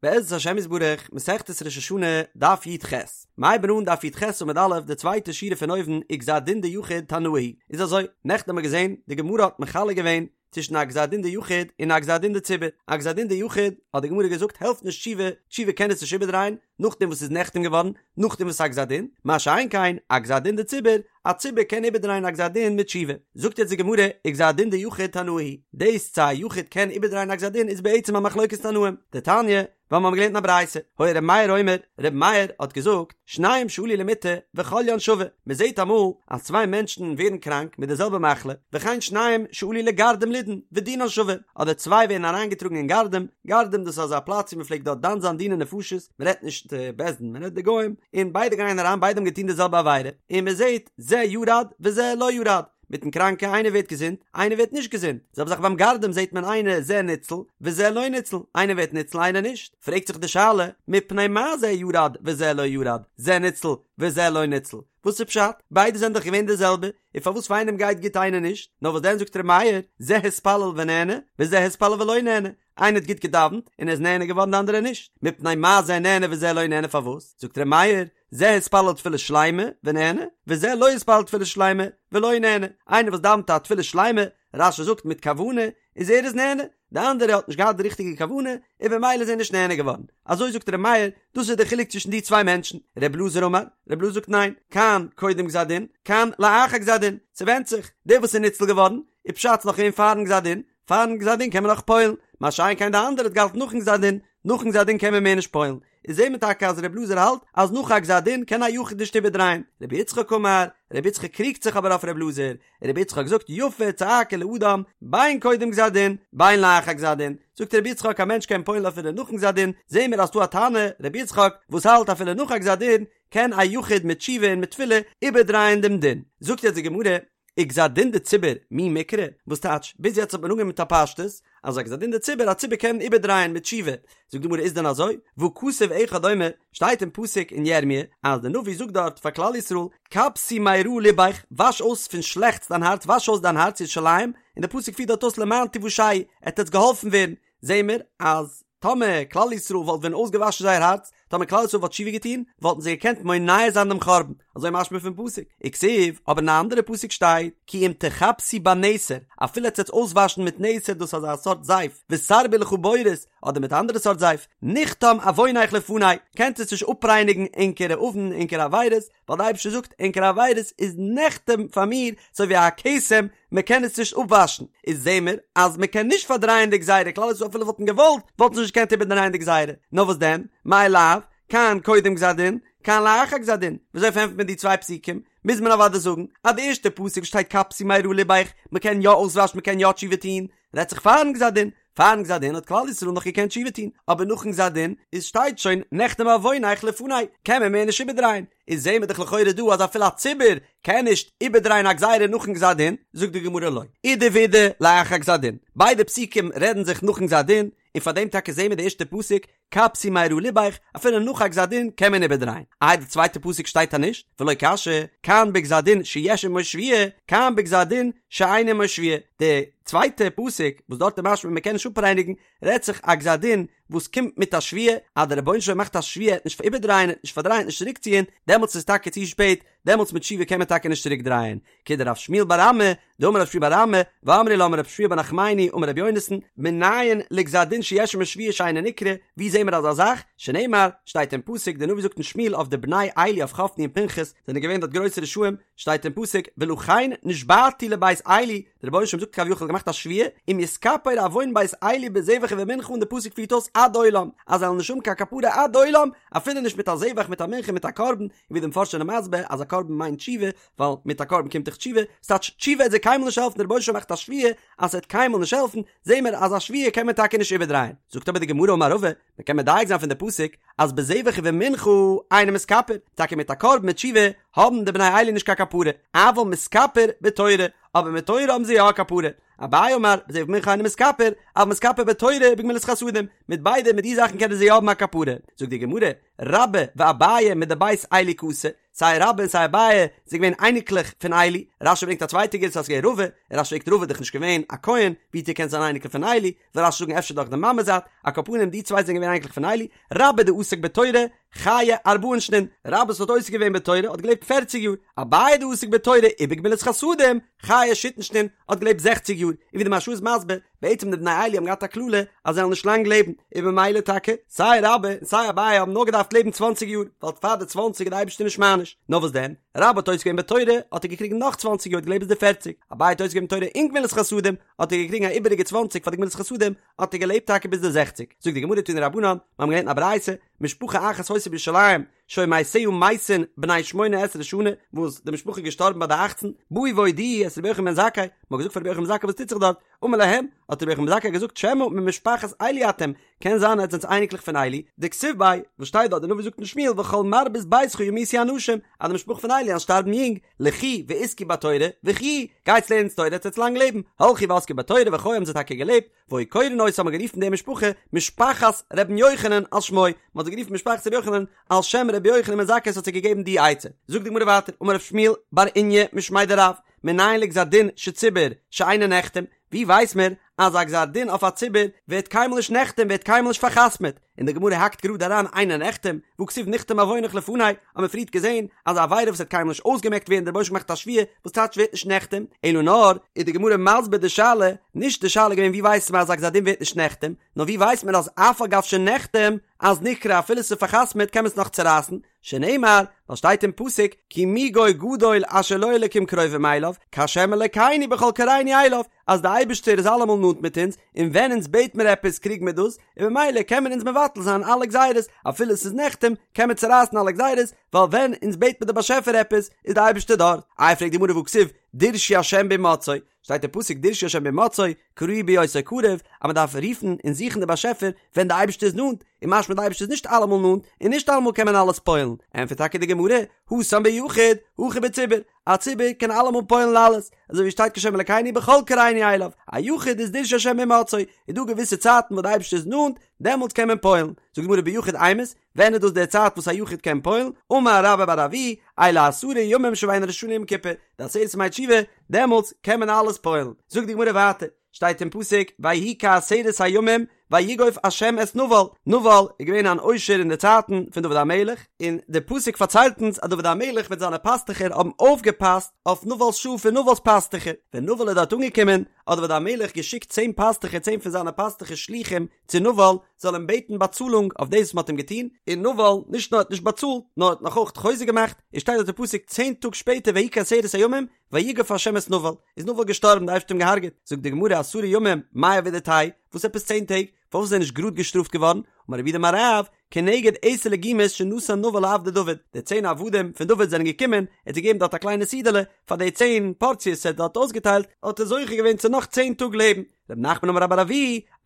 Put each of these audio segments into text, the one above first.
בעזרת השם יתברך, מסכת ראש השנה, דף י"ח. מ'הייבן אן דף י"ח עמוד א', די צווייטע שורה פון אויבן, וגזר דין דיחיד תנאי היא. איז אזוי, נעכטן האבן מיר געזען, די גמרא האט מחלק געווען צווישן א גזר דין דיחיד און א גזר דין דציבור. א גזר דין דיחיד, האט די גמרא געזאגט, העלפט נישט תשובה, תשובה קען עס נישט איבערדרייען, נאכדעם וואס ס'איז נחתם געווארן, נאכדעם וואס ס'איז א גזר דין, מה שאין כן, א גזר דין דציבור, א ציבור קען איבערדרייען א גזר דין מיט תשובה. זאגט יעצט די גמרא, וגזר דין דיחיד תנאי היא דאס צו א יחיד קען איבערדרייען א גזר דין איז בעצם א מחלוקת תנאים. דתניא, ווייל מיר האבן געלערנט אין א ברייתא, היה ר' מאיר אומר, ר' מאיר האט געזאגט, שניים שעלו למיטה וחוליין שווה, מען זעט אמאל אז צוויי מענטשן ווערן קראנק מיט די זעלבע מחלה, וכן שניים שעלו לגרדום לידון ודינן שווה, אדער צוויי ווערן אריינגעטראגן אין גרדום, גרדום דאס איז אזא פלאץ ווי מען פלעגט דארט דן זיין דיני נפשות, מען רעדט נישט בית דין, מען רעדט די גוים, און ביידע גייען אריין ביידע האבן געטון די זעלבע עבירה, און מען זעט זה ירד וזה לא ירד, מיטן קראנקע איינער ווערט געזונט איינער ווערט נישט געזונט, זעלבע זאך ביים גרדום זעט מען איינער זה ניצל וזה לא ניצל, איינער ווערט ניצל איינער נישט, פרעגט זיך די שאלה, מפני מה זה ירד וזה לא ירד, זה ניצל וזה לא ניצל, וואס איז פשט? ביידע זענען דאך געווען די זעלבע, און פארוואס פאר איינעם גייט גוט איינער נישט? נאר וואס דען זאגט ר' מאיר, זה התפלל ונענה, וזה התפלל ולא נענה, איינער האט גוט געדאווענט און ער איז נענה געווארן די אנדערע נישט, מפני מה זה נענה וזה לא נענה פארוואס? זאגט ר' מאיר, זה התפלל תפילה שלימה ונענה, וזה לא התפלל תפילה שלימה ולא נענה, איינער וואס דאווענט א תפילה שלימה, רש"י זאגט מיט כוונה, איז ער איז נענה, די אנדערע האט נישט געהאט די ריכטיגע כוונה, און במילא איז ער נישט נענה געווארן. אזוי זאגט ר' מאיר, דאס איז די חילוק צווישן די צוויי מענטשן. ר' אלעזר אמר, ר' אלעזר זאגט ניין, כאן קודם גזר דין, כאן לאחר גזר דין, ס'ווענדט זיך, דער וואס איז ניצל געווארן, איז פשט ס'נאך געווען פארן גזר דין, פארן גזר דין קען מען נאך פועל'ן, מה שאין כן די אנדערע האט געהאלטן נאכן גזר דין, נאכן גזר דין קען מען מער נישט פועל'ן. איז זעהט מען טאקע אז ר' אלעזר האלט אז נאך א גזר דין קען א יחיד נישט איבערדרייען. רבי יצחק אמר, רבי יצחק קריגט זיך אבער אויף ר' אלעזר, רבי יצחק זאגט יפה צעקה לאדם בין קודם גזר דין בין לאחר גזר דין, זאגט רבי יצחק א מענטש קען פועל'ן אפילו נאכן גזר דין, זעהן מיר אז ס'דא א תנא רבי יצחק וואס האלט אפילו נאך א גזר דין קען א יחיד מיט תשובה און מיט תפילה איבערדרייען דעם דין, זאגט יעצט די גמרא, וגזר דין דציבור מי מיקרי, וואס טייטש, ביז יעצט האט מען אנגענומען מיט א פשטות, אז א גזר דין דציבור, א ציבור קען איבערדרייען מיט תשובה, זאגט די גמרא איז דען אזוי? והא כתוב אחד אומר, שטייט אין פסוק אין ירמי' אז דער נביא זאגט דארט פאר כלל ישראל, כבסי מרע לבך, וואש אויס פון שלעכטס דיין הארץ, וואש אויס דיין הארץ ירושלים, און דער פסוק פירט דארט אויס למען תושעי, עט עטס געהאלפן ווערן, זעהן מיר אז טאמער כלל ישראל וואלט ווען אויסגעוואשן זייער הארץ, טאמער כלל ישראל וואלט תשובה געטון, וואלטן זיי געקענט מונע זיין דעם חורבן, אזוי משמע פון פסוק, וכתיב, אבער אין א אנדערע פסוק שטייט, כי אם תכבסי בנתר, אפילו עטס וועטס אויסוואשן מיט נתר דאס איז אזא סארט זייף, ותרבי לך בורית, אדער מיט א אנדערע סארט זייף, נחתם עונך לפני, קענט עטס נישט אפרייניגן ענקערע עוון, ענקערע עבירות, ווייל די אייבערשטער זאגט, ענקערע עבירות איז נחתם פאר מיר, אזוי ווי א כתם, מען קען עס נישט אפוואשן, איז זעהן מיר אז מען קען נישט פארדרייען די גזירה, כלל ישראל אפילו וואלטן געוואלט וואלטן זיי נישט געקענט איבערדרייען די גזירה, נאר וואס דען, מאי לאו, כאן קודם גזר דין, כאן לאחר גזר דין, וויאזוי פארענטפערט מען די צוויי פסוקים? מוז מען אוודאי זאגן אז די ערשטע פסוק שטייט כבסי מרע לבך, מען קען יא אויסוואשן מען קען יא תשובה טון, רעדט זיך פארן גזר דין, פארן גזר דין האט כלל ישראל נאך געקענט תשובה טון, אבער נאכן גזר דין איז שטייט שוין נחתם עונך לפני, קען מען מער נישט איבערדרייען, איז זעהן מיר דאך לכאורה דא אז אפילו א ציבור קען נישט איבערדרייען א גזירה נאכן גזר דין, זאגט די גמרא לא, אידי ואידי לאחר גזר דין, ביידע פסוקים רעדן זיך נאכן גזר דין, און פאר דעם טאקע זעהן מיר די ערשטע פסוק כבסי מרע לבך, אפילו נאך א גזר דין קען מען איבערדרייען, איי די צווייטע פסוק שטייט אז נישט, ולא קשיא, כאן בגזר דין שיש עמו שבועה, כאן בגזר דין שאין עמו שבועה, די צווייטע פסוק וואס דארט איז משמע מען קען נישט אפרייניגן, רעדט זיך א גזר דין וואס קומט מיט א שבועה, אז דער רבונו של עולם מאכט א שבועה ער וועט נישט איבערדרייען ער וועט נישט פארדרייען נישט צוריקציען, דעמאלטס איז טאקע צו שפעט, דעמאלטס מיט תשובה קען מען טאקע נישט צוריק דרייען, כדרב שמואל בר אמי, דאמר רב שמואל בר אמי, ואמרי לה אמר רב שמואל בר נחמני אמר רבי יונתן, מנין לגזר דין שיש עמו שבועה שאינו נקרע, ווי זעהן מיר אזא זאך? שנאמר, שטייט אין פסוק, דער נביא זאגט אין שמואל אויף די בני עלי אויף חפני און פנחס, זענען געווען דארט גרויסע רשעים, שטייט אין פסוק, ולכן נשבעתי לבית עלי, דער רבונו של עולם זאגט כביכול געמאכט א שבועה, אם יתכפר עון בית עלי בזבח ובמנחה און די פסוק פירט אויס עד עולם, אז זיי וועלן נישט האבן קיין כפרה עד עולם, אפילו נישט מיט א זבח מיט א מנחה מיט א קרבן, און ווי די מפרשים זענען מסביר אז א קרבן מיינט תשובה, ווייל מיט א קרבן קומט דאך תשובה, ס'טייטש תשובה וועט זיי קיינמאל נישט העלפן, דער רבונו של עולם מאכט א שבועה אז ס'וועט קיינמאל נישט העלפן, זעהן מיר אז א שבועה קען מען טאקע נישט איבערדרייען. זאגט אבער די גמרא אמר רבא, מען קען מדייק זיין פון די פסוק אז בזבח ובמנחה אינו מתכפר, טאקע מיט א קרבן מיט תשובה האבן די בני עלי נישט קיין כפרה, אבל מתכפר בתורה, אבער מיט תורה האבן זיי יא א כפרה. אביי אמר, בזבח ובמנחה אינו מתכפר, אבל מתכפר בתורה ובגמילות חסדים, מיט ביידע מיט די זאכן קענען זיי יא האבן א כפרה. זאגט די גמרא, רבה ואביי מדבית עלי קאתו, סיי רבה און סיי אביי זענען געווען אייניקלעך פון עלי, רשי ברענגט א צווייטע גירסא אז ס'איז געווען רבא, און רשי פרעגט רבא איז דאך נישט געווען א כהן, ווי האט ער געקענט זיין אייניקל פון עלי, וויל רשי זאגן אפשר דורך די מאמע זייט, על כל פנים די צוויי זענען געווען אייניקלעך פון עלי, רבה דעסק בתורה, חיי ארבעין שנין, רבה וואס האט עוסק געווען בתורה האט געלעבט פערציג יאר, אביי דעסק בתורה ובגמילות חסדים, חיי שיתין שנין, האט געלעבט זעכציג יאר, און ווי די מהרש"א איז מסביר, בעצם די בני עלי האבן געהאט א קללה אז זיי וועלן נישט לאנג לעבן, און במילא טאקע, סיי רבה און סיי אביי האבן נאר געדארפט לעבן צוואנציג יאר, ווייל פאר די צוואנציג איז די אייבערשטער נישט מעניש, נאר וואס דען, רבה האט עוסק געווען בתורה, האט ער געקריגן נאך צוואנציג יאר האט געלעבט ביז די פערציג, אביי האט עוסק געווען בתורה און גמילות חסדים, האט ער געקריגן א איבעריגע צוואנציג פאר די גמילות חסדים, האט ער געלעבט טאקע ביז די זעכציג. זאגט די גמרא תנו רבנן, מיר האבן געלערנט אין א ברייתא, משפחה אחת היתה בירושלים, שהיו מתיה מתין בני שמונה עשרה שנה, וואס די משפחה איז געשטארבן ביי די אכצן, באו והודיעו את רבי יוחנן בן זכאי, מען האט געזאגט פאר רבי יוחנן בן זכאי וואס טוט זיך דארט, אמר להם, האט רבי יוחנן בן זכאי געזאגט שמא ממשפחת עלי אתם, קען זיין עטס זענטס אייניקלעך פון עלי, דכתיב ביה, וואס שטייט דארט, די נביא זאגט אין שמואל וכל מרבית ביתך ימותו אנשים, אז די משפחה פון עלי וועלן שטארבן יונג, לכו ועסקו בתורה, וחיו, גייטס לערנטס תורה עטס וועטס לאנג לעבן, הלכו ועסקו בתורה וחיו האבן זיי טאקע געלעבט, והיו קורין אותה האט מען גערופן די משפחה משפחת ר' יוחנן על שמו, מען האט זיי גערופן משפחת ר' יוחנן על שם ר' יוחנן בן זכאי וואס האט זיי געגעבן די עצה. זאגט די גמרא ווייטער, אמר רב שמואל בר איניא משמיה דרב, מנין לגזר דין של ציבור שאינו נחתם, ווי ווייס מיר אז א גזר דין אויף א ציבור ווערט קיינמאל נישט נחתם ווערט קיינמאל נישט פאר'חתמ'עט, און די גמרא האקט גראד אריין אינו נחתם, והכתיב נכתם עונך לפני, האט מען פריערט געזען אז א עבירה וואס וועט קיינמאל נישט אויסגעמעקט ווערן דער רבוש"ע מאכט א שבועה וואס טייטש ווערט נישט נחתם, אלא נאר איז די גמרא מסביר די שאלה, נישט די שאלה געווען ווי ווייסט מען אז א גזר דין ווערט נישט נחתם, נאר ווי ווייסט מען אז אף על גב שנחתם אז נקרע אפילו ס'איז פאר'חתמ'עט קען מען עס נאך צורייסן, שנאמר, ווייל שטייט אין פסוק, כי מי גוי גדול אשר לו אלקים קרובים אליו, כהשם אלקינו בכל קראנו אליו, אז די אייבערשטער איז אלעמאל נאנט מיט אונז, און ווען אונז בעט מיר עפעס קריג מיר דאס, און ממילא קען מען אונז מבטל זיין אלע גזירות, אפילו עס איז נחתם, קען מען צורייסן אלע גזירות, ווייל ווען אונז בעט מיר די באשעפער עפעס, איז די אייבערשטער דארט. איי פרעגט די גמרא והכתיב, דרשו השם בהמצאו, שטייט אין פסוק דרשו השם בהמצאו, קראוהו בהיותו קרוב, אז מען דארף רופן און זוכן די באשעפער ווען די אייבערשטער איז נאנט, און משמע די אייבערשטער איז נישט אלעמאל נאנט, און נישט אלעמאל קען מען אלעס פועל'ן, ענטפערט טאקע די גמרא, התם ביחיד, הכא בציבור, א ציבור קען אלעמאל פועל'ן אלעס, אזוי ווי שטייט כהשם אלקינו בכל קראנו אליו, א יחיד איז דרשו השם בהמצאו, איז דא געוויסע צייטן וואס די אייבערשטער איז נאנט, דעמאלטס קען מען פועל'ן, זאגט די גמרא ביחיד אימת, ווען איז דאס די צייט וואס א יחיד קען פועל'ן? אמר רבה בר אבוה, אלו עשרה ימים שבין ראש השנה ליום כיפור, די עשרת ימי תשובה, דעמאלטס קען מען אלעס פועל'ן. זאגט די גמרא ווייטער, שטייט אין פסוק, ויהי כעשרת הימים ויגוף השם את נבל, נבל איז געווען אן עושר אין די צייטן פון דוד המלך, און די פסוק פארציילט אונז אז דוד המלך מיט זיינע פאסטוכער האבן אויפגעפאסט אויף נבל'ס שאף און נבל'ס פאסטוכער, ווען נבל איז דארט אנגעקומען, האט דוד המלך געשיקט צען פאסטוכער, צען פון זיינע פאסטוכער שלוחים, צו נבל זאל אים בעטן באצאלונג אויף דאס וואס מען האט אים געטון, און נבל נישט נאר האט נישט באצאלט, נאר האט נאך אויך חוזק געמאכט, און שטייט דארט אין פסוק צען טאג שפעטער ויהי כעשרת הימים ויגף ה' את נבל, איז נבל געשטארבן די אייבערשטער האט אים געהארגעט, זאגט די גמרא עשרה ימים מאי עבידתייהו, וואס עפעס צען טעג, פארוואס איז ער נישט גראד געשטראפט געווארן, אמר רב יהודה אמר רב, כנגד עשר לגימות שנתן נבל לעבדי דוד, די צען עבדים פון דוד זענען געקומען, ער האט זיי געגעבן דארט א קליינע סעודה'לע, פאר די צען פארציעס ער האט דארט אויסגעטיילט, האט ער זוכה געווען צו נאך צען טאג לעבן. רב נחמן אמר רבה בר אבוה,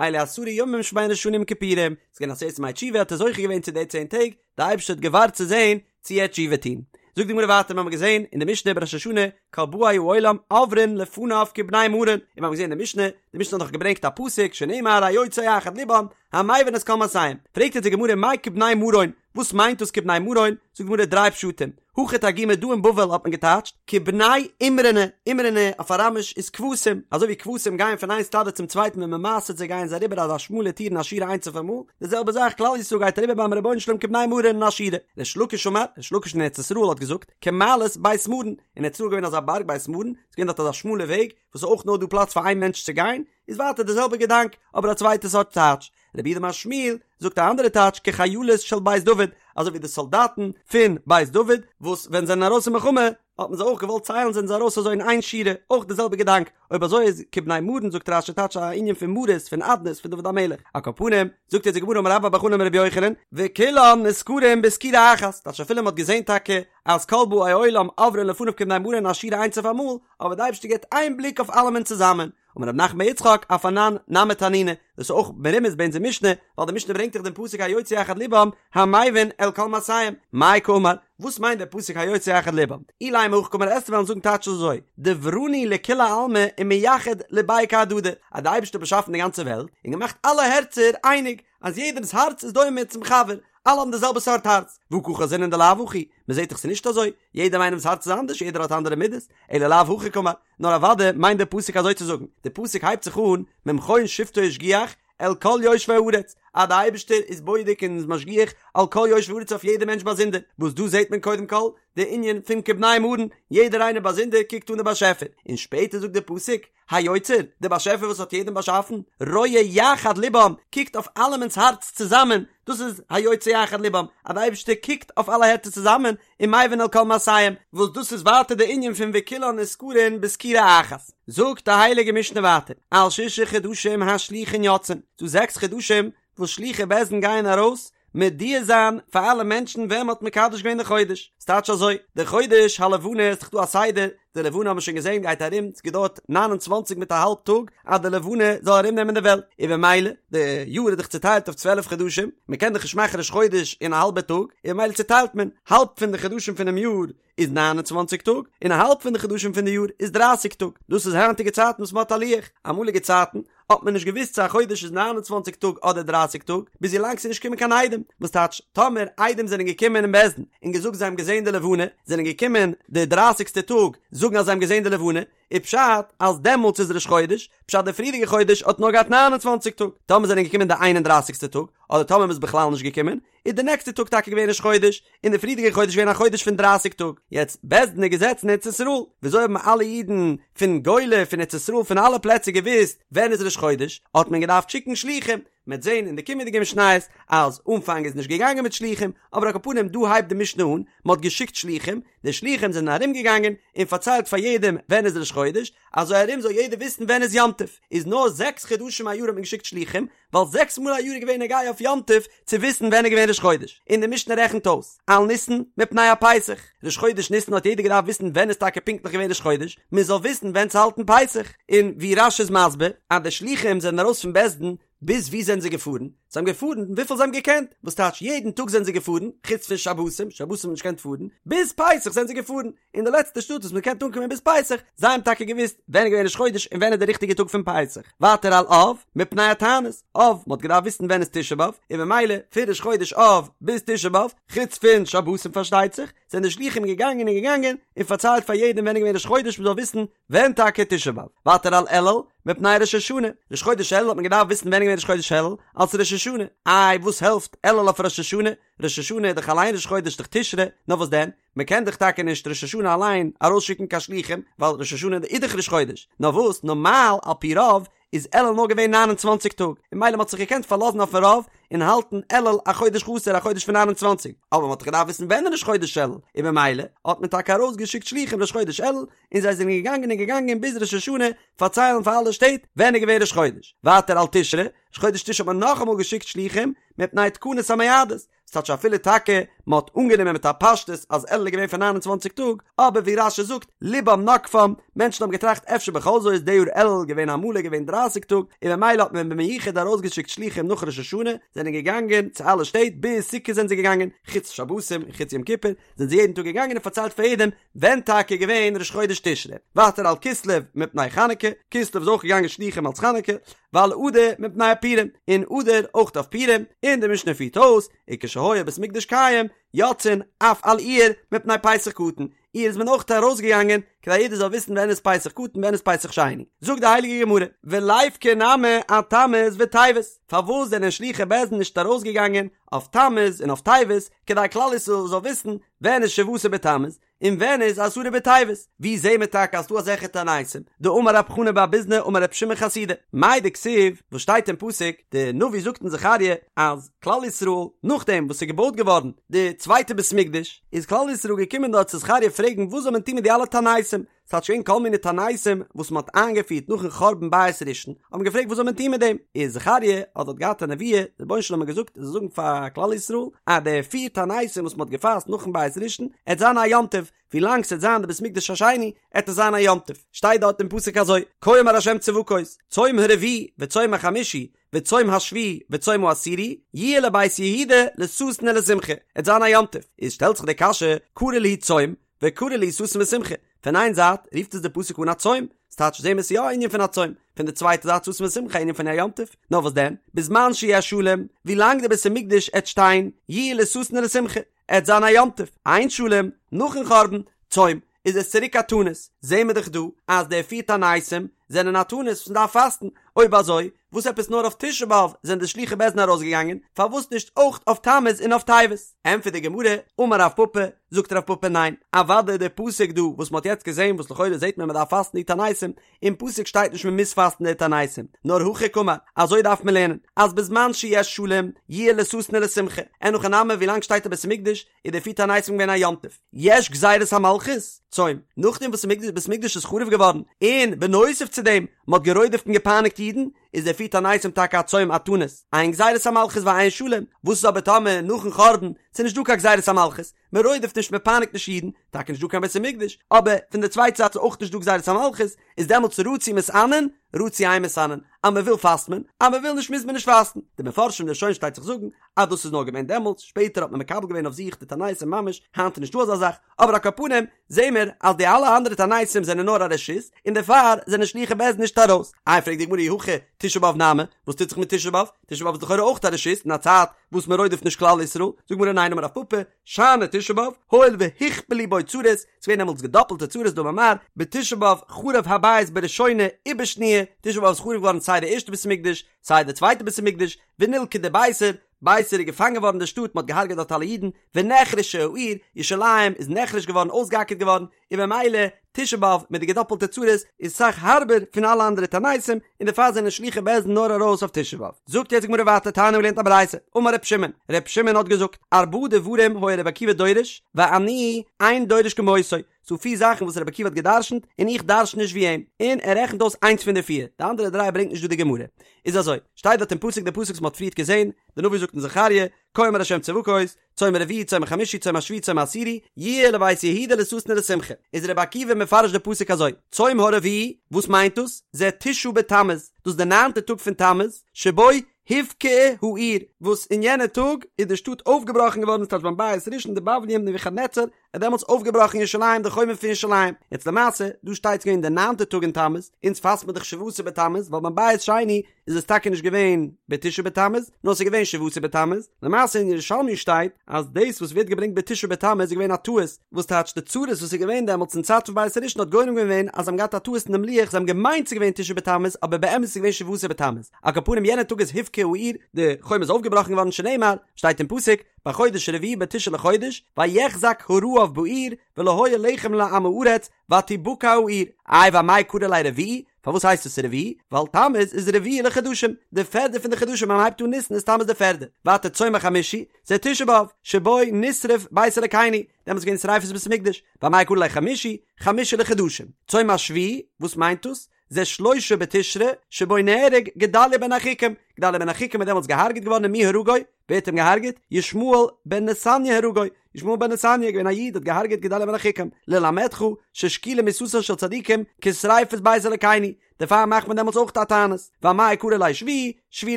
אלו עשרה ימים שבין ראש השנה ליום כיפורים, ס'איז געווען עשרת ימי תשובה האט ער זוכה געווען צו די צען טעג, די אייבערשטער האט געווארט צו זען צו ער וועט תשובה טון. זאגט די גמרא ווייטער מיר האבן געזען אין די משנה בראש השנה כל באי העולם עוברין לפניו כבני מרון, און מיר האבן געזען אין די משנה, די משנה האט דאך געברענגט א פסוק שנאמר היוצר יחד לבם המבין את כל מעשיהם, פרעגט אונז די גמרא מאי כבני מרון, וואס מיינט דאס כבני מרון? זאגט די גמרא דריי פשטים, הכא תרגימו דא אין בבל האט מען געטייטשט כבני אמרנא, אמרנא אויף אראמיש איז כבשים, אזוי ווי כבשים גייען פון איין סטאדע צום צווייטן ווען מען מעשר'ט זיי גייען זיי אריבער אזא שמאלע טיר אין א שורה איינס אויף אמאל, די זעלבע זאך כלל ישראל גייט אריבער ביים רבונו של עולם כבני מרון אין א שורה. ריש לקיש אמר, ריש לקיש אין ארץ ישראל האט געזאגט, כמעלות בית מרון, אין ארץ ישראל איז געווען אזא בארג בית מרון, ס'איז געווען דארט אזא שמאלע וועג, וואס איז אויך נאר דא פלאץ פאר איין מענטש צו גיין, איז ווייטער די זעלבע געדאנק, אבער א צווייטע סארט טייטש. רב יהודה אמר שמואל זאגט א אנדערע טייטש כחיילות של בית דוד, אזוי ווי די סאלדאטן פון בית דוד, וואס ווען זיי זענען ארויס אין מלחמה האט מען זיי אויך געוואלט ציילן זענען זיי ארויס אזוי אין איין שורה, אויך די זעלבע געדאנק, אויב אזוי איז כבני מרון זאגט רש"י טייטש א ענין פון מרות פון אדנות פון דוד המלך, על כל פנים, זאגט יעצט די גמרא אמר רבה בר בר חנה אמר רבי יוחנן, וכולן נסקרים בסקירה אחת, טייטש אפילו מען האט געזען טאקע אז כל באי עולם עוברין לפניו כבני מרון אין א שורה איינס אויף אמאל, אבער די אייבערשטער געבט איין בליק אויף אלעמען צוזאמען, אמר רב נחמן בר יצחק אף אנן נמי תנינא, דאס איז אויך מרומז ביי אונזער משנה, ווייל די משנה ברענגט דאך דעם פסוק היוצר יחד לבם המבין אל כל מעשיהם, מאי קאמר, וואס מיינט דער פסוק היוצר יחד לבם? אילימא הכי קאמר עסטו וועלן זאגן טייטש אזוי, דברנהו לכולי עלמא ומייחד לבייהו כהדדי, אז די אייבערשטער האט באשאפן די גאנצע וועלט און געמאכט אלע הערצער אייניג, אז יעדעמ'ס הארץ איז דומה צום חבר, אלע האבן די זעלבע סארט הארץ, והא קא חזינן דלאו הכי, מען זעט דאך ס'איז נישט אזוי, יעדעם איינעמ'ס הארץ איז אנדערש, יעדער האט אנדערע מידות, אלא לאו הכי קאמר, נאר אוודאי מיינט דער פסוק אזוי צו זאגן, דער פסוק הייבט זיך אן, ממכון שבתו השגיח, אל כל יושבי הארץ, אז דער אייבערשטער איז בודק און איז משגיח על כל יושבי הארץ אויף יעדער מענטש באזונדער, וואס דא זעט מען קודם כל די ענין פון כבני מרון, יעדער איינער באזונדער קוקט אן די באשעפער, און שפעטער זאגט דער פסוק, היוצר, דער באשעפער וואס האט יעדעם באשאפן, רואה יחד לבם, קוקט אויף אלעמענס הארץ צוזאמען, דאס איז היוצר יחד לבם, אז דער אייבערשטער קוקט אויף אלע הערצער צוזאמען, ומבין אל כל מעשיהם, וואס דאס איז ווייטער די ענין פון וכולן נסקרין בסקירה אחת. זאגט די הייליגע משנה ווייטער, על שישה חדשים השלוחין יוצאין, ס'דא זעקס חדשים וואס שלוחי בית דין גייען ארויס מודיע זיין פאר אלע מענטשן ווען מ'האט מקדש געווען די חודש, ס'טייטש אזוי, די חודש הלבנה איז דאך דא א סדר, די לבנה האבן מיר שוין געזען גייט ארום, ס'געדויערט ניין און צוואנציג מיט א האלב טאג אז די לבנה זאל ארום נעמען די וועלט, און במילא די יאר איז דאך צוטיילט אויף 12 חדשים, מען קען דאך נישט מאכן ראש חודש אין א האלבע טאג, און במילא צוטיילט מען, האלב פון די חדשים פונעם יאר איז 29 טאג, און א האלב פון די חדשים פון די יאר איז 30 טאג, דאס איז היינטיגע צייטן וואס מען האט א לוח, אמאליגע צייטן האט מען נישט געוואוסט צו א חודש איז 29 טאג אדער 30 טאג, ביז ווילאנג ס'איז נישט געקומען קיין עדים, וואס טייטש, טאמער עדים זענען געקומען אין בית דין און געזאגט זיי האבן געזען די לבנה, זענען געקומען די דרייסיגסטע טאג זאגן אז זיי האבן געזען די לבנה, איז פשט אז דעמאלטס איז ראש חודש, פשט די פריערדיגע חודש האט נאר געהאט 29 טאג, טאמער זענען געקומען די איין און דרייסיגסטע טאג, אדער טאמער מ'איז בכלל נישט געקומען, איז די נעקסטע טאג טאקע געווען ראש חודש, און די פריערדיגע חודש געווען א חודש פון דרייסיג טאג. יעצט, בית דין איז געזעצן אין ארץ ישראל, וויאזוי האבן אלע אידן פון גולה, פון ארץ ישראל, פון אלע פלעצער געוואוסט ווען איז ראש חודש? האט מען געדארפט שיקן שלוחים. מ'עט זען אין די קומענדיגע משניות אז אנפאנג איז נישט געגאנגען מיט שלוחים, אבער על כל פנים דא הייבט די משנה אן, מ'האט געשיקט שלוחים, די שלוחים זענען ארום געגאנגען און פארציילט פאר יעדעם ווען איז ראש חודש, אזוי ארום זאל יעדער וויסן ווען איז יום טוב. איז נאר זעקס חדשים א יאר האט מען געשיקט שלוחים, ווייל זעקס מאל א יאר איז געווען נוגע אויף יום טוב צו וויסן ווען איז געווען ראש חודש, און די משנה רעכנט אויס, על ניסן מפני הפסח, ראש חודש ניסן האט יעדער געדארפט וויסן ווען איז טאקע פונקטליך געווען ראש חודש, מען זאל וויסן ווען צו האלטן פסח, און ווי רש"י איז מסביר אז די שלוחים זענען ארויס פון בית דין, ביז וואו זענען זיי געפארן? זיי האבן געפארן וויפיל זיי האבן געקענט, וואס טייטש יעדן טאג זענען זיי געפארן, חוץ פון שבתים, שבתים האט מען נישט געקענט פארן, ביז פסח זענען זיי געפארן, אין די לעצטע שטאט וואס מען קען אנקומען ביז פסח, זיי האבן טאקע געוואוסט ווען איז געווען ראש חודש און ווען איז די ריכטיגע טאג פון פסח. ווייטער על אב, מפני התענית, אב, מען האט געדארפט וויסן ווען איז תשעה באב, און ממילא פון ראש חודש אב ביז תשעה באב, חוץ פון שבתים פארשטייט זיך, זענען די שלוחים געגאנגען און געגאנגען און פארציילט פאר יעדעם ווען איז געווען ראש חודש מען זאל וויסן ווען טאקע תשעה באב. ווייטער על אלול, מפני ראש השנה, ראש חודש אלול האט מען געדארפט וויסן ווען איז געווען ראש חודש אלול, אלס ראש השנה, איי וואס העלפט אלול אויף ראש השנה, ראש השנה איז דאך אליין ראש חודש דאך תשרי, נאר וואס דען? מען קען דאך טאקע נישט ראש השנה אליין ארויסשיקן קיין שלוחים, ווייל ראש השנה איז דאך ראש חודש, נאר וואס נארמאל על פי רוב איז אלול נאר געווען 29 טאג, און ממילא מען האט זיך געקענט פארלאזן אויפן רוב און האלטן אלול א חודש חסר א חודש פון 29, אבער מען האט דאך געדארפט וויסן ווען איז ראש חודש אלול, און ממילא האט מען טאקע ארויסגעשיקט שלוחים ראש חודש אלול, און זיי זענען געגאנגען און געגאנגען ביז ראש השנה פארציילן פאר אלע שטעט ווען איז געווען ראש חודש, ווייטער על תשרי, ראש חודש תשרי האט מען נאכאמאל געשיקט שלוחים מפני תקנת המועדות, ס'טייטש אפילו טאקע מען האט אנגענומען מיט א פשטות אז אלול איז געווען פון 29 טאג, אבער ווי רש"י זאגט לבם נגפם, מענטשן האבן געטראכט אפשר בכל זאת איז די יאר אלול געווען א מלא געווען 30 טאג, און ממילא האט מען במיוחד ארויסגעשיקט שלוחים נאך ראש השנה, זענען געגאנגען צו אלע שטעט ביז סוכות זענען זיי געגאנגען, חוץ שבתים און חוץ יום כיפור, זענען זיי יעדן טאג געגאנגען און פארציילט פאר יעדעם ווען טאקע איז געווען ראש חודש תשרי, ווייטער על כסלו מפני חנוכה, כסלו איז אויך געגאנגען שלוחים אלס חנוכה, ועל אדר מפני הפורים, און אדר אויך אויף פורים, און די משנה פירט אויס, וכשהיה בית מקדש קיים, יוצאין אף על אייר מפני פסח קטן, אייר איז מען אויך ארויסגעגאנגען כדי יעדער זאל וויסן ווען איז פסח קטן ווען איז פסח שני, זאגט די הייליגע גמרא, וליפקו נמי אתמוז וטבת, פארוואס זענען שלוחי בית דין נישט ארויסגעגאנגען אויף תמוז און אויף טבת, כדי כלל ישראל זאל וויסן ווען איז שבעה עשר בתמוז און ווען איז עשרה בטבת? ווי זעהן מיר טאקע אז ס'דא אזעלכע תעניתים? דאמר רב חנא בר ביזנא אמר רב שמעון חסידא, מאי דכתיב, וואס שטייט אין פסוק, די נביא זאגט אין זכריה אז כלל ישראל נאכדעם וואס ס'איז געבויט געווארן די צווייטע בית מקדש, איז כלל ישראל געקומען דארט צו זכריה פרעגן וואס זאל מען טון מיט די אלע תעניתים, ס'האט שוין כל מיני תעניתים וואס מ'האט איינגעפירט נאכן חורבן בית ראשון, האט מען געפרעגט וואס זאל מען טון מיט דעם, איז זכריה האט דארט געהאט א נבואה, דער רבונו של עולם האט געזאגט ער זאל זאגן פאר כלל ישראל אז די פיר תעניתים וואס מ'האט געפאסט נאכן בית ראשון עט זיין א יום טוב, ווי לאנג ס'עט זיין די בית מקדש השני עט עס זיין א יום טוב, שטייט דארט אין פסוק אזוי, כה אמר ה' צבקות, צום הרביעי וצום החמישי וצום השביעי וצום העשירי, יהיה לבית יהודה לששון ולשמחה, עט זיין א יום טוב, איז שטעלט זיך די קשיא, קרי להו צום, וקרי להו ששון ושמחה, פון איין זייט רופט עס די פסוק אן א צום, ס'טייטש זעהן מיר ס'איז יא א ענין פון א צום, פון די צווייטע זייט ששון ושמחה א ענין פון א יום טוב, נאר וואס דען, בזמן שיש שלום, ווי לאנג די בית המקדש עט שטיין, יהיה לששון ולשמחה, עט זיין א יום טוב, אין שלום, נאכן חורבן, צום, איז עס צוריק א תענית, זעהן מיר דאך דא אז די פיר תעניתים זענען א תענית וואס מ'דארף פאסטן, אויב אזוי וואס עפעס נאר אויף תשעה באב זענען די שלוחי בית דין ארויסגעגאנגען, פארוואס נישט אויך אויף תמוז און אויף טבת? ענטפערט די גמרא, אמר רב פפא, זאגט רב פפא ניין, אוודאי די פסוק דא וואס מ'האט יעצט געזעהן וואס לכאורה זעהט מען מ'דארף פאסטן די תעניתים, אין פסוק שטייט נישט מ'מוז פאסטן די תעניתים, נאר הכי קאמר, אזוי דארף מען לערנען, אז בזמן שיש שלום, יהיה לששון ולשמחה, אין הכי נמי ווילאנג שטייט א בית המקדש, איז די פיר תעניתים געווען א יום טוב. יש גזירת המלכות, צום, נאכדעם וואס בית המקדש איז חרוב געווארן, און בנוסף צו דעם, מ'האט גערודפ'ט און געפייניגט אידן, איז די פיר תעניתים טאקע א צום א תענית, אין גזירת המלכות ואין שלום, וואס איז אבער טאמער נאכן חורבן, ס'איז נישט דא קיין גזירת המלכות, מען רודפ'ט נישט מען פייניגט נישט אידן, טאקע נישט דא קיין בית המקדש, אבער פון די צווייטע זייט איז אויך נישט דא גזירת המלכות, איז דעמאלטס רצו מתענין, רצו אין מתענין, אז מען וויל פאסט מען, אז מען וויל נישט מוז מען נישט פאסטן, די מפרשים די ראשונים שטייט זיך זאגן אז דאס איז נאר געווען דעמאלטס, שפעטער האט מען מקבל געווען אויף זיך די תעניתים ממש, היינט איז נישט דא אזא זאך, אבער על כל פנים זעהן מיר אז די אלע אנדערע תעניתים זענען נאר א רשות, און דערפאר זענען שלוחי בית דין נישט ארויס. איי פרעגט די גמרא אי הכי תשעה באב נמי, וואס טוט זיך מיט תשעה באב? תשעה באב איז לכאורה אויך א רשות אין א צייט וואס מען רודפ'ט נישט כלל ישראל, זאגט די גמרא ניין אמר רב פפא, שאני תשעה באב, הואיל והוכפלו בו צרות, ס'איז געווען דעמאלטס געדאפלטע צרות דאמר מר, בתשעה באב חרב הבית בראשונה ובשניה, תשעה באב איז חרוב געווארן סיי די ערשטע בית המקדש, סיי די צווייטע בית המקדש, ונלכדה ביתר, ביתר איז געפאנגען געווארן די שטאט, מ'האט געהארגעט דארט אלע אידן, ונחרשה העיר, ירושלים איז נחרש געווארן אויסגעאקערט געווארן, און במילא תשעה באב מיט די געדאפלטע צרות איז אסאך הארבער פון אלע אנדערע תעניתים, און דערפאר זענען שלוחי בית דין נאר ארויס אויף תשעה באב. זאגט יעצט די גמרא ווייטער תניא מ'האט געלערנט א ברייתא, אמר ר' שמעון, ר' שמעון האט געזאגט, ארבעה דברים היה ר' עקיבא דורש, ואני אין דורש כמותו, ס'דא פיר זאכן וואס ר' עקיבא האט גע'דרש'נט, און איך דרש'ן נישט ווי אים, און ער רעכנט אויס איינס פון די פיר, די אנדערע דריי ברענגט נישט דא די גמרא. איז אזוי, שטייט דארט אין פסוק די פסוק וואס מ'האט פריערט געזען, די נביא זאגט אין זכריה, כה אמר ה' צבקות, צום הרביעי צום החמישי צום השביעי צום העשירי, יהיה לבית יהודה לששון ולשמחה. איז רבי עקיבא מפרש די פסוק אזוי, צום הרביעי, וואס מיינט דאס? זה תשעה בתמוז, דאס איז די ניינטע טאג פון תמוז, שבו הובקעה העיר, וואס אין יענע טאג איז די שטאט אויפגעבראכן געווארן, ס'טייטש ביים בית ראשון די בבלים נבוכדנצר האט דעמאלטס אויפגעבראכן ירושלים די חומה פון ירושלים, יעצט למעשה דא שטייט ס'געווען די ניינטע טאג אין תמוז, אונז פאסט מען דאך שבעה עשר בתמוז ווייל ביים בית שני איז עס טאקע נישט געווען בתשעה בתמוז נאר ס'איז געווען שבעה עשר בתמוז, למעשה אין ירושלמי שטייט אז דאס וואס ווערט געברענגט בתשעה בתמוז איז געווען א טעות, וואס טייטש די צרות וואס איז געווען דעמאלטס אין צייט פון בית ראשון האט גורם געווען אז זיי האבן געהאט א טעות אין דעם לוח זיי האבן געמיינט ס'איז געווען תשעה בתמוז אבער באמת איז געווען שבעה עשר בתמוז, על כל פנים יענע טאג איז הובקעה העיר די חומה איז אויפגעבראכן געווארן שנאמר שטייט אין פסוק בחודש הרביעי בתשעה לחודש, ויחזק הרעב בעיר, ולא היה לחם לעם הארץ, ותבקע העיר. איי ואמאי קרי ליה רביעי, פארוואס הייסט עס רביעי? ווייל תמוז איז רביעי לחדשים, די פערדע פון די חדשים ווען מ'הייבט אן ניסן איז תמוז די פערדע. ווייטער צום החמישי, זה תשעה באב, שבו נשרף בית אלקינו, דעמאלטס איז געווען שריפת בית המקדש, ואמאי קרי ליה חמישי, חמישי לחדשים. צום השביעי, וואס מיינט דאס? זה שלושה בתשרי, שבו נהרג גדליה בן אחיקם, גדליה בן אחיקם איז דעמאלטס געהארגעט געווארן ומי הרגו? ווער האט אים געהארגעט? ישמעאל בן נתניה הרגו, ישמעאל בן נתניה איז געווען א איד האט געהארגעט גדליה בן אחיקם, ללמדך ששקולה מיתתן של צדיקים כשריפת בית אלקינו, דערפאר מאכט מען דעמאלטס אויך א תענית, ואמאי קרי ליה שביעי, שביעי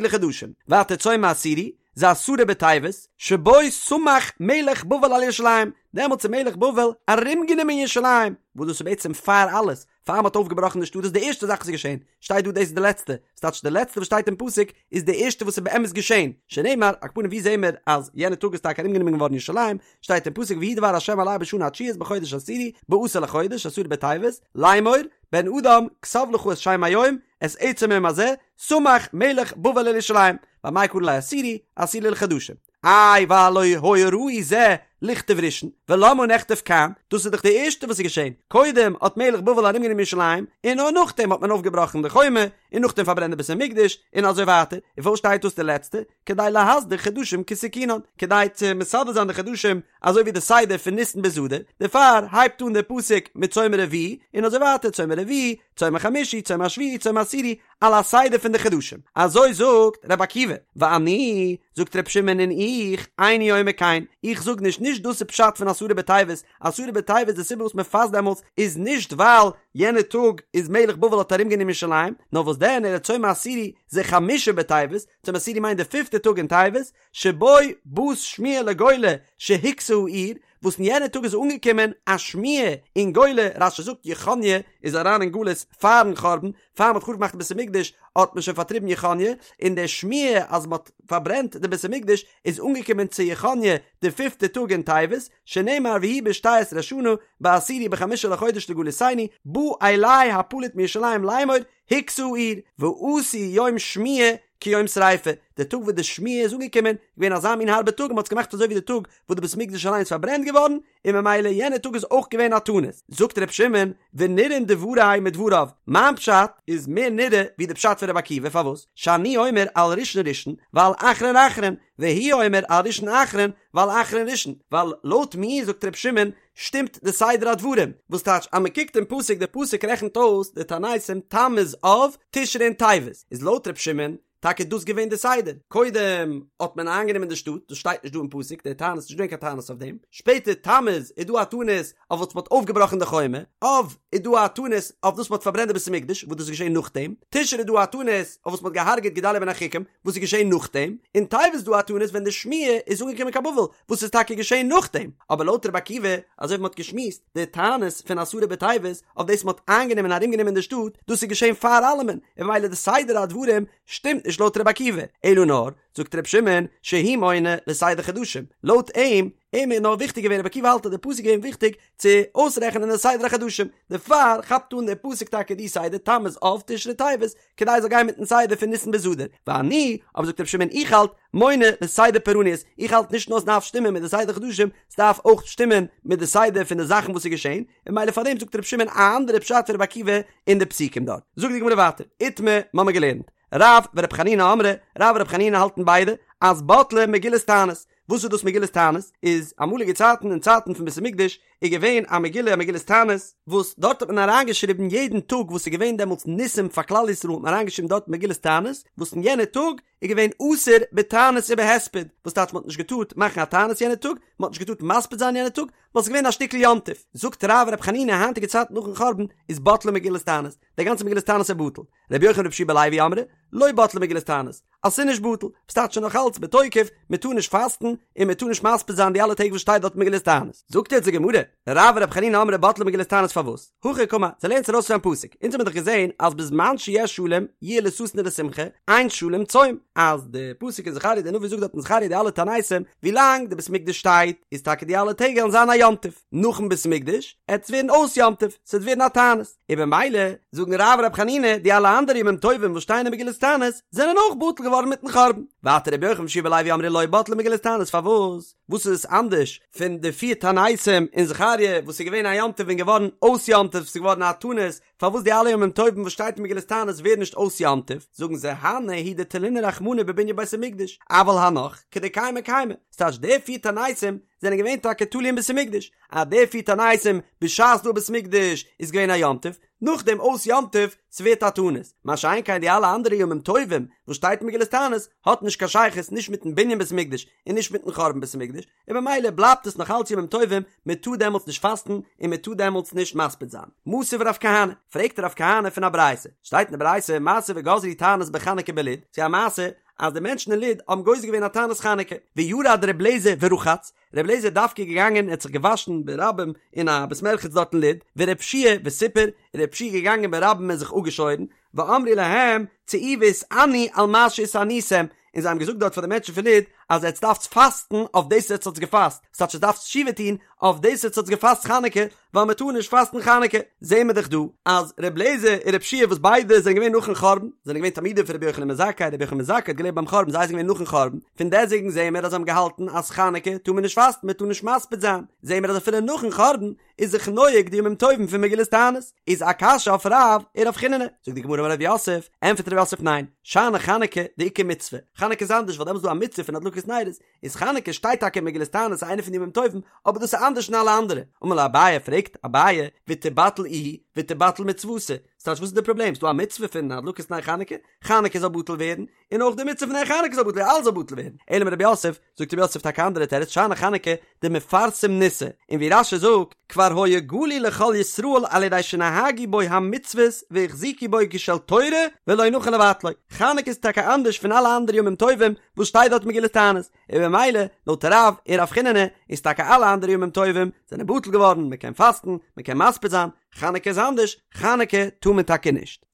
לחדשים, ווייטער צום העשירי, זה עשרה בטבת, שבו סמך מלך בבל על ירושלים, דעמאלטס איז מלך בבל ארומגענומען ירושלים, וואס דאס איז בעצם פאר אלעס, פאר מ'האט אויפגעבראכן די שטאט דאס איז די ערשטע זאך וואס איז געשען, שטייט דא דאס איז די לעצטע, ס'טייטש די לעצטע וואס שטייט אין פסוק איז די ערשטע וואס איז באמת געשען, שנאמר, על כל פנים ווי זעהן מיר אז יענע טאג איז טאקע ארומגענומען געווארן ירושלים, שטייט אין פסוק ויהי דבר ה' אלי בשנה התשיעית בחודש העשירי בעשור לחודש עשרה בטבת, לאמור, בן אדם, כתוב לך את שם היום, את עצם היום הזה, סמך מלך בבל על ירושלים, ואמאי קרי ליה עשירי, עשירי לחדשים. איי והלא היה ראוי זה ליכתב ראשון, ולמה נכתב כאן, דאס איז דאך די ערשטע וואס איז געשען, קודם האט מלך בבל ארומגענומען ירושלים, און נאר נאכדעם האט מען אויפגעבראכן די חומה, און נאכדעם פארברענט די בית המקדש, און אזוי ווייטער, און פארוואס שטייט דאס די לעצטע? כדי להסדיר חדשים כתיקונן, כדי צו מסדר זיין די חדשים אזוי ווי די סדר פון ניסן ביז אדר, דערפאר הייבט אן דער פסוק מיט צום הרביעי, און אזוי ווייטער צום הרביעי, צום החמישי, צום השביעי, צום העשירי, על הסדר פון די חדשים. אזוי זאגט רבי עקיבא, ואני, זאגט רבי שמעון און איך, איני אומר כן, איך זאג נישט, נישט דאס איז פשט פון עשרה בטבת, עשרה בטבת די סיבה וואס מען פאסט דעמאלטס איז נישט ווייל יענע טאג איז מלך בבל האט ארום גענומען ירושלים, נאר וואס דען אלא צום העשירי זה חמשה בטבת, צום העשירי מיינט די פיפטע טאג אין טבת, שבו באת שמועה לגולה שהוכתה העיר, וואס אין יענע טאג איז אנגעקומען א שמועה אין גולה, רש"י זאגט יכניה איז אריין אין גלות פארן חורבן, פאר מ'האט חרוב געמאכט די בית המקדש האט מען שוין פארטריבן יכניה, און די שמועה אז מ'האט פארברענט די בית המקדש איז אנגעקומען צו יכניה די פיפטע טאג אין טבת, שנאמר ויהי בשתי עשרה שנה בעשירי בחמישה לחודש לגלותנו בא אלי הפליט מירושלים לאמור הוכתה העיר ועשו יום שמועה כיום שריפה, די טאג וואס די שמועה איז אנגעקומען איז געווען אזא מין הארבע טאג און מ'האט עס געמאכט אזוי ווי די טאג וואס די בית המקדש אליין איז פארברענט געווארן, און ממילא יענע טאג איז אויך געווען א תענית. זאגט ר' שמעון, ונראין דברי מדבריו, מיין פשט איז מער נראה ווי די פשט פון ר' עקיבא, פארוואס? שאני אומר על ראשון ראשון ועל אחרון אחרון, והוא אומר על ראשון אחרון ועל אחרון ראשון, ווייל לויט מיר זאגט ר' שמעון שטימט די סדר הדברים, וואס טייטש אז מען קוקט אין פסוק די פסוק רעכנט אויס די תעניתים תמוז אב תשרי און טבת, איז לויט ר' שמעון טאקע דאס געווען די סדר, קודם האט מען איינגענומען די שטאט, דאס שטייט נישט דא אין פסוק, די תענית, נישט געווען קיין תענית אויף דעם, שפעטער תמוז איז דא א תענית אויף וואס מען האט אויפגעבראכן די חומה, אב איז דא א תענית אויף וואס מען האט פארברענט די בית המקדש, וואס דאס איז געשען נאכדעם, תשרי איז דא א תענית אויף וואס מען האט געהארגעט גדליה בן אחיקם, וואס איז געשען נאכדעם, און טבת איז דא א תענית ווען די שמועה איז אנגעקומען קיין בבל, וואס איז טאקע געשען נאכדעם, אבער לויט רבי עקיבא, אזוי ווי מען האט געשמועסט, די תענית פון עשרה בטבת, אויף דאס מען האט איינגענומען און ארומגענומען די שטאט, דאס איז געשען פאר אלעמען, און ממילא די סדר הדברים שטימט נישט לויט רבי עקיבא, אלא נאר, זאגט רבי שמעון, שהוא מונה לסדר חדשים, לויט אים, אים איז נאר וויכטיג געווען, רבי עקיבא האלט אז די פסוק איז געווען וויכטיג צו אויסרעכענען די סדר החדשים, דערפאר כאפט אן דער פסוק טאקע די סדר תמוז אב תשרי טבת, כדי עס זאל גיין מיטן סדר פון ניסן ביז אדר, ואני, אבער זאגט רבי שמעון איך האלט, מונה לסדר פורעניות, איך האלט נישט נאר עס דארף שטימען מיט די סדר חדשים, עס דארף אויך שטימען מיט די סדר פון די זאכן וואס איז געשען, און ממילא פארדעם זאגט רבי שמעון א אנדערע פשט פון רבי עקיבא אין די פסוקים דארט. זאגט די גמרא ווייטער, איתמר, מ'האמיר געלערנט, רב ורבי חנינא אמרי, רב און רבי חנינא האלטן ביידע, אז בטלה מגילת תענית, וואס איז דאס מגילת תענית? איז אמאליגע צייטן אין צייטן פון בית המקדש איז געווען א מגילה א מגילת תענית, וואס דארט האט מען אריינגעשריבן יעדן טאג וואס איז געווען דעמאלטס ניסים פאר כלל ישראל האט מען אריינגעשריבן דארט מגילת תענית, וואס אין יענע טאג איז געווען אסור בתענית ובהספד, וואס טייטש מען האט נישט געטארט מאכן א תענית יענע טאג, מען האט נישט געטארט מספיד זיין יענע טאג, ווייל ס'איז געווען א שטיקל יום טוב. זאגט רב ורבי חנינא היינטיגע צייטן נאכן חורבן איז בטלה מגילת תענית, די גאנצע מגילת תענית איז בטל. רבי יוחנן ורבי יהושע בן לוי אמרי, לא בטלה מגילת תענית, אז ס'איז נישט בטל, ס'טייטש נאך אלץ בתוקף, מען טאר נישט פאסטן און מען טאר נישט מספיד זיין די אלע טעג וואס שטייט דארט מגילת תענית. זאגט יעצט די גמרא, רב ורבי חנינא אמרי בטלה מגילת תענית פארוואס? הכי קאמר, זיי לערנען עס ארויס פון א פסוק, אונז האבן דאך געזען אז בזמן שיש שלום יהיה לששון ולשמחה, אין שלום צום, אז די פסוק אין זכריה די נביא זאגט דארט אין זכריה די אלע תעניתים, ווילאנג די בית מקדש שטייט איז טאקע די אלע טעג וועלן זיין א יום טוב, נאכן בית מקדש עט עס ווערן אויס יום טוב, ס'וועט ווערן א תענית. און במילא זאגן רב און רבי חנינא די אלע אנדערע ימים טובים וואס שטייען אין מגילת תענית זענען אויך בטל געווארן מיטן חורבן. ווייטער רבי יוחנן ורבי יהושע בן לוי אמרי לא בטלה מגילת תענית פארוואס? וואס איז עס אנדערש פון די פיר תעניתים אין זכריה וואס איז געווען א יום טוב און געווארן אויס יום טוב ס'איז געווארן א תענית פארוואס די אלע ימים טובים וואס שטייט אין מגילת תענית ווערן נישט אויס יום טוב זאגן זיי הני הוא דתלינהו רחמנא בבנין בית המקדש אבל הנך כדקיימי קיימי ס'טייטש די פיר תעניתים זענען געווען טאקע תלוי אין בית המקדש, אז די פיר תעניתים בשעת דא בית מקדש איז געווען א יום טוב, נאכדעם אויס יום טוב ס'ווערט א תענית, מה שאין כן די אלע אנדערע ימים טובים וואס שטייט אין מגילת תענית האט נישט קיין שייכות נישט מיטן בנין בית מקדש און נישט מיטן חורבן בית המקדש, און במילא בלייבט עס נאך אלץ ימים טובים, מען טאר דעמאלטס נישט פאסטן און מען טאר דעמאלטס נישט מספיד זיין. מתיב רב כהנא, פרעגט רב כהנא פון א ברייתא, שטייט אין די ברייתא מעשה וגזרו תענית בחנוכה בלוד, ס'איז א מעשה אז די מענטשן אין לוד האבן גוזר געווען א תענית חנוכה, וירד ר' לעזער ורחץ, ר' לעזער איז דווקא געגאנגען און האט זיך געוואשן ברבים אין א בית מרחץ דארט אין לוד, ור' יהושע וסיפר, און ר' יהושע איז געגאנגען ברבים און זיך אפגעשוירן, ואמרו להם, צאו והתענו על מה שהתעניתם, און זיי האבן געזאגט דארט פאר די מענטשן פון לוד, אז עטס דארפטס פאסטן אויף דאס עטס האטס געפאסט, ס'טייטש עטס דארפטס תשובה טון אויף דאס עטס האטס געפאסט חנוכה, ווייל מען טאר נישט פאסטן חנוכה, זעהן מיר דאך דא אז ר' לעזער און ר' יהושע וואס ביידע זענען געווען נאכן חורבן, זענען געווען תלמידים פון רבי יוחנן בן זכאי, רבי יוחנן בן זכאי האט געלעבט ביים חורבן, זיי זענען געווען נאכן חורבן, פון דעסטוועגן זעהן מיר אז זיי האבן געהאלטן אז חנוכה טאר מען נישט פאסטן, מען טאר נישט מספיד זיין, זעהן מיר אז אפילו נאכן חורבן איז זיך נוהג די ימים טובים פון מגילת תענית, איז א קשיא אויף רב און רב חיננא, זאגט די גמרא אמר רב יוסף, ענטפערט רב יוסף ניין, שאני חנוכה דאיכא מצוה, חנוכה איז אנדערש ווייל דעמאלס איז דא א מצוה פון הדלקת נרות, איז חנוכה שטייט טאקע אין מגילת תענית איינע פון די ימים טובים, אבער דאס איז אנדערש פון אלע אנדערע. אמר ליה אביי, פרעגט אביי, ותיבטל איהי ותיבטל מצותה, ס'טייטש וואס איז די פראבלעם? ס'דא א מצוה פון הדלקת נר חנוכה, חנוכה זאל בטל ווערן, און אויך די מצוה פון נר חנוכה זאל בטל ווערן, אלעס זאל בטל ווערן. אלא אמר רב יוסף, זאגט רב יוסף טאקע א אנדערע תירוץ, שאני חנוכה דמפרסם ניסא, און ווי רש"י זאגט, כבר היה גלוי לכל ישראל על ידי שנהגו בו המצוות והחזיקו בו כשל תורה ולא נכון לבטלו, חנוכה איז טאקע אנדערש פון אלע אנדערע ימים טובים וואס שטייט דארט מגילת תענית, און במילא לויט רב און רב חיננא איז טאקע אלע אנדערע ימים טובים זענען בטל געווארן, מען קען פאסטן, מען קען מספיד זיין, חנוכה איז אנדערש, חנוכה טאר מען טאקע נישט.